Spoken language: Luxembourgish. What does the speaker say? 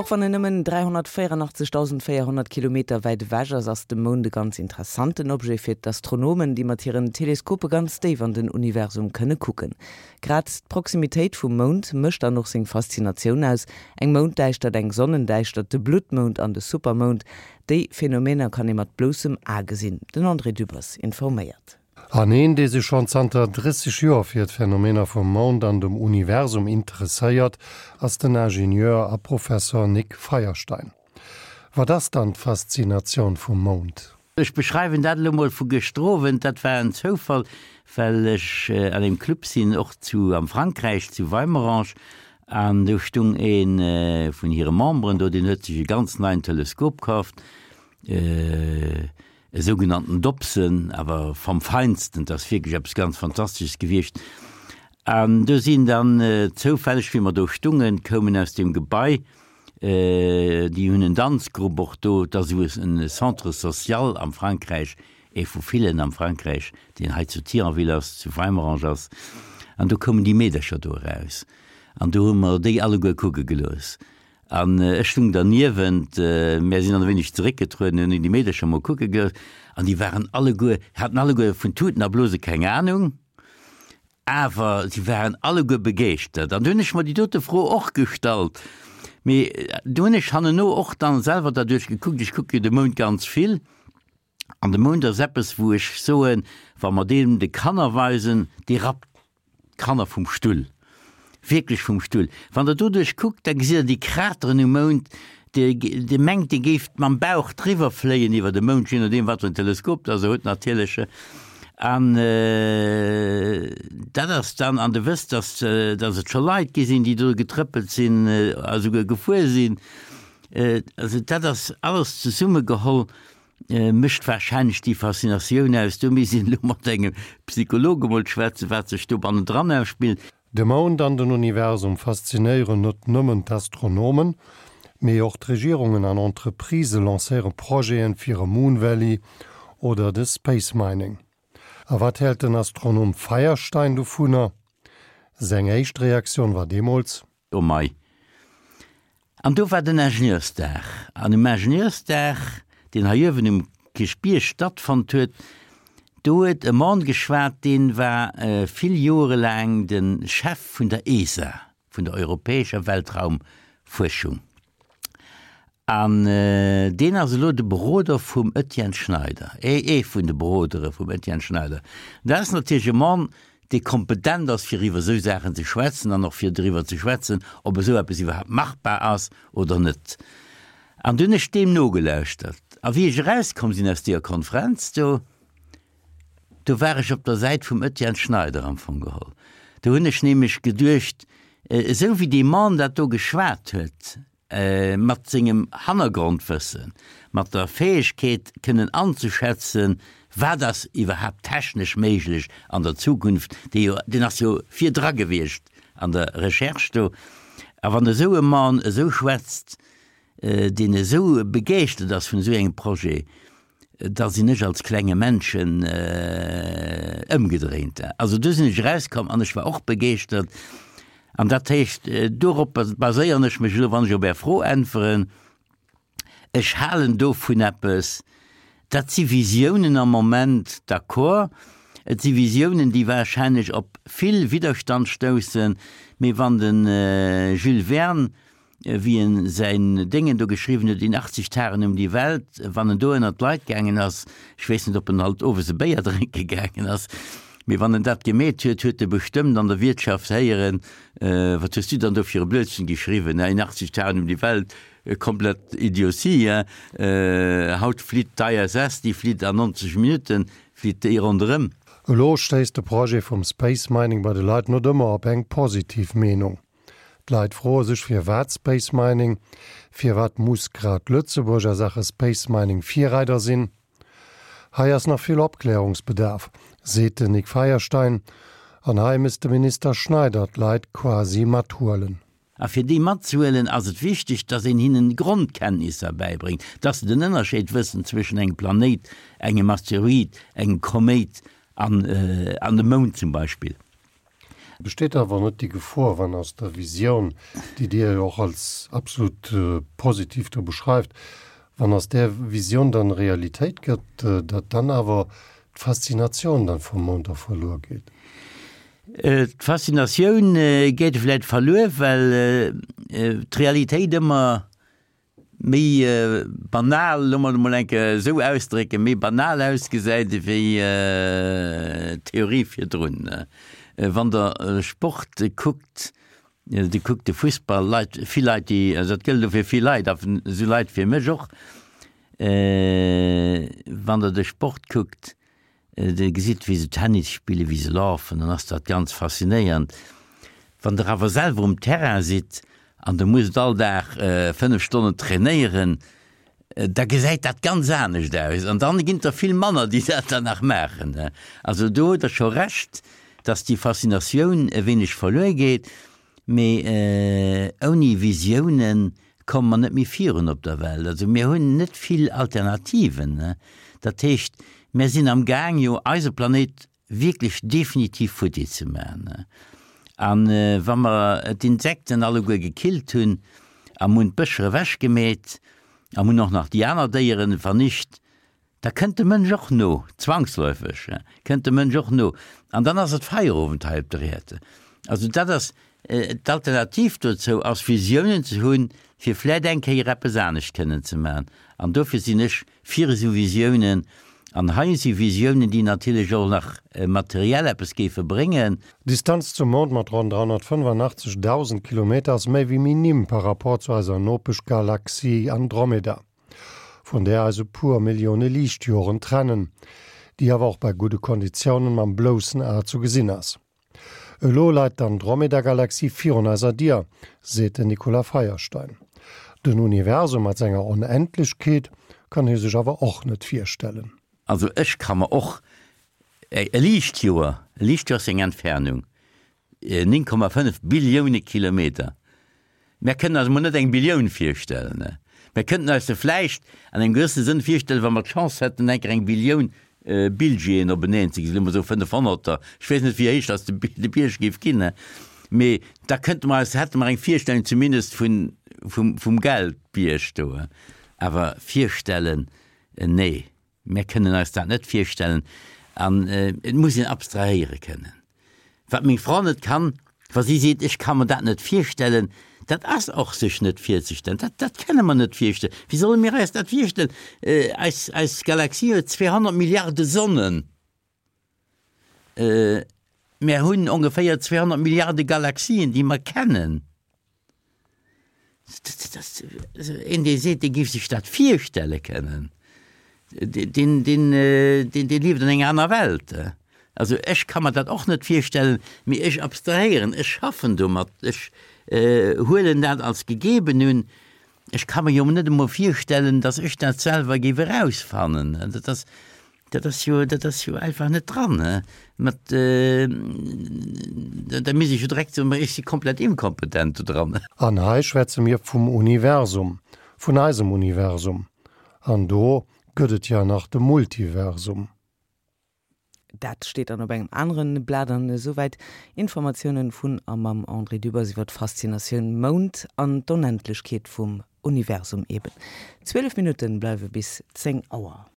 Och wann en nëmmen 384.400 Kilometer wäit ewech ass, ass de Mound e ganz interessanten Objet fir d'Astronomen, déi mat hiren Teleskope ganz déif an den Universum kënne kucken. Grad d'Proximitéit vum Mound mécht dann och seng Faszinatioun aus. Eng Mounddäischtert, eng Sonnendäischtert, de Bluttmound an de Supermound, déi Phänomener kann ee mat bloussem A gesinn. Den André Dübbers informéiert. An een, dee sech schonn zanter 30 Joer fir d'Phänomener vum Mound an dem Universum interesséiert, ass den Ingenieur a Professor Nic Feierstein. Wat ass dann d'Faszinatioun vum Mound? Ech beschreiwen dat elo mol vu gëschter Owend. Dat war en Zoufall, well ech an engem Club sinn, och zu am Frankräich, zu Weimerange, an do stung ee vun hire Memberen do, deen huet sech e ganz neien Teleskop kaaft, e sougenannten Dobson, awer vom Feinsten, dat ass wierklech eppes ganz Fantastesches gewiescht. An do sinn dann zoufälleg, wéi mer do stungen, koumen aus deem Gebai, Déi hunn en Danzgrupp och do. Et ass esou e Centre social am Frankräich, ee vu villen am Frankräich, deen hei zu Thionville ass, zu Weimerange ass. An do koumen déi Meedercher do eraus an do hu mer déi alleguer kucke gelooss. An ech stung derniewent, mär sinn dann e wéineg zeréckgetrueden, hunn déi Meedercher mol kucke gelooss an déi waren alleguer, haten alleguer vun Tuten a Blose keng Anung. Awer si waren alleguer begeeschtert. An du hunn ech mer déi dote Fro och gestallt. Mee du hunn ech hanneno och dann selwer derduerch gekuckt, ech kucke jo de Mound ganz vill, an de Mound ass eppes, wou ech soen, wa mer deen de Kanner weisen, dee rappt d'Kanner vum Stull. Wierklech vum Stull. Wann Der doduerch kuckt, da gesitt Der déi Krateren um Mound, Dir, Dir mengt, Dir géift mam Bauch driwwer fléien iwwer de Mound, je nodeem wat fir en Teleskop Der se hutt natierlech. An dat ass dann, an Der wësst, dass, dass et scho Leit gi sinn, déi do getrëppelt sinn a souguer gefuer sinn. Also dat ass alles zesummegeholl mécht warscheinlech déi Faszinatioun aus. Do misst een elo mat engem Psycholog emol schwätzen, wat sech do bannendran ausspillt. De Mound an den Universum faszinéieren net nëmmen d'Astronomen, mee och d'Regierungen an Entreprisë lancéiere Projeten fir e Moon Valley oder de Space Mining. A wat hält den Astronom Feierstein dovunner? Seng éischt Reaktioun war deemools. Oh mei. An do war den Ingenieursdag. An um Ingenieursdag, deen hei uewen um Kierchbierg stattfonnt huet, do huet e Mann geschwat, dee war vill Joere laang de Chef vun der ESA, vun der europäescher Weltraumfuerschung. An deen ass elo de Beroder vum Etienne Schneider, ee vun de Berodere vum Etienne Schneider. Dat ass natierlech e Mann, dee kompetent ass, fir iwwer esou Saachen ze schwätzen an och fir driwwer ze schwätzen, ob esou eppes iwwerhaapt machbar ass oder net. An du hunn ech deem nogelauschtert. A wéi ech erauskomm sinn aus deeër Konferenz do, do war ech op der Säit vum Etienne Schneider am Fong geholl. Do hunn ech nämlech geduecht, esou wéi dee Mann dat do geschwat huet, mat sengem Hannergrondwëssen, mat der Fäegkeet kënnen anzeschätzen, wat ass iwwerhaapt technesch méiglech an der Zukunft, dee jo, deen ass jo virdra gewiescht an der Recherche do, a wann esou e Mann esou schwätzt, deen esou begeeschtert ass vun esou engem Projet, da sinn ech als klenge Männchen ëmgedréint. Also do sinn ech erauskomm an ech war och begeeschtert. An dat heescht, dorop baséieren ech mech elo, wann ech op Är Fro äntweren. Ech halen dovun eppes. Dat si Visiounen am Moment, d'accord. Et si Visiounen, déi warscheinlech op vill Widderstand stoussen. Mee wann de Jules Verne wéi en säin Déngen do geschriwwen huet, In 80 Tagen um die Welt, wann en do ënnert d'Leit gaangen ass, ech weess net, ob en alt owes e Béier drénke gaangen ass, mee wann en dat gemeet huet, huet e bestëmmt an der Wiertschaft héieren, Wat hues du dann do fir e Blödsinn geschriwwen, In 80 Tagen um die Welt, komplett Idiotie, hein? Haut flitt d'ISS, déi flitt an 90 Minutten, flitt déi ronderëm. Elo stéisst de Projet vum Space Mining bei de Leit net ëmmer op eng positiv Meenung. D'Leit froe sech firwat Space Mining? Firwat muss grad Lëtzebuerg a Saache Space Mining Virreider sinn? Hei ass nach vill Opklärungsbedarf, seet den Nic Feierstein. An hei misst de Minister Schneider d'Leit quasi mathuelen. A fir déi matzehuelen ass et wichteg, dass een hinnen Grondkenntnisser bäibréngt, dass se den Ënnerscheed wëssen zwëschen engem Planéit, engem Asteroid, engem Koméit an an dem Mound zum Beispill. Besteet awer net déi Gefor, wann aus der Visioun, déi Dir jo och als absolut positiv do beschreift, wann aus där Visioun dann Realitéit gëtt, datt dann awer d'Faszinatioun dann vum Mound da verluer geet? D'Faszinatioun geet vläit verluer, well d'Realitéit ëmmer méi banal, loosse mer et emol eng Kéier esou ausdrécken, méi banal ausgesäit ewéi d'Theorie virdrun. Wann Der Sport kuckt, Dir kuckt de Fussball, Leit, vill Leit, déi, also dat gëllt elo fir vill Leit, a esou Leit fir mech och, wann Der de Sport kuckt, Dir gesitt, wéi se Tennis spillen, wéi se lafen, dann ass dat ganz faszinéiernd. Wann Der awer selwer um Terrain sidd an Der musst all Dag 5 Stonnen trainéieren, da gesäit dat ganz anescht aus an dann ginn et der vill manner, déi dat dann nach maachen. Also do hutt Der scho Recht, dass déi Faszinatioun e wéineg verluer geet. Mee ouni Visiounen komme mer net méi virun op der Welt. Also mir hunn net vill Alternativen. Dat heescht, mir sinn am Gaang jo eise Planéit wierklech definitiv futti ze maachen. A wa mer d'Insekten alleguer gekillt hunn a mir hunn d'Bëscher ewechgemeet a mir hunn och nach déi aner Déieren vernicht, Da kënnt de Mënsch och no, zwangsläufeg kënnt de Mënsch och no, an dann ass et Feierowend hei op der Äerd. Also dat ass d'Alternativ dozou ass Visiounen ze hunn, fir vläit eng Kéier eppes anescht kënnen ze maachen. An dofir sinn ech fir esou Visiounen. An hei si Visiounen, déi natierlech och nach materiell eppes géife bréngen. D'Distanz zum Mound mat ronn 385.000 Kilometer ass méi wéi minim par rapport zu eiser Nopeschgalaxie Andromeda. vun där eis e puer Millioune Liichtjoren trennen, déi awer och bei gudde Konditiounen mam bloussen A zu gesinn ass. Elo leit d'Andromeda-Galaxie virun eiser Dier, seet den Nicolas Feierstein. Den Universum mat senger Onendlechkeet kann hie sech awer och net virstellen. Also ech ka mer och e Liichtjoer, e Liichtjoer ass eng Entfernung, 9,5 Billioune Kilometer. Mär kënnen eis emol net eng Billioun virstellen. Mär kënnten eis se vläicht an engem gewëssene Sënn virstellen, wa mer d'Chance hätten, eng Kéier eng Billioun Billjeen openeen ze gesinn, soe mer esou fënnefhonnerter, ech weess net, wéi héich datt de Bierg géif ginn, mee da kënnte mer eis, hätte mer eng Virstellung zumindest vun, vum, vum Geldbierg do. Awer virstellen, nee. Mär kënnen eis dat net virstellen an et muss een abstrahéiere kënnen. Wat meng Fra net kann, wa si seet, ech ka mer dat net virstellen, dat ass och sech net virzestellen. Dat, dat kënne mer net virstellen. Wéi solle mir eis dat virstellen? Eis, eis Galaxie huet 200 Milliarde Sonnen. Mär hunn ongeféier 200 Milliarde Galaxien, déi mer kennen. Een, dee seet, dee géif sech dat virstelle kënnen, deen, deen, deen, dee lieft an enger aner Welt. Also ech ka mer dat och net virstellen, mee ech abstrahéieren, ech schaffen domat, ech huelen dat als gegeben un. Ech ka mer jo net emol virstellen, datt ech dat selwer géif erausfannen. Dat ass, Dat ass jo, dat ass jo einfach net dran, he. Mat, da misst ech jo direkt soen, ma ech si komplett inkompetent do dran. An hei schwätze mir vum Universum, vun eisem Universum. An do gëtt et ja nach de Multiversum. Dat steet dann op engem aneren Blat. An esouwäit Informatiounen vun a mam André Dübbers iwwer d'Faszinatioun Mound an d'Onendlechkeet vum Universum eben. 12 Minutten bleiwe bis 10 Auer.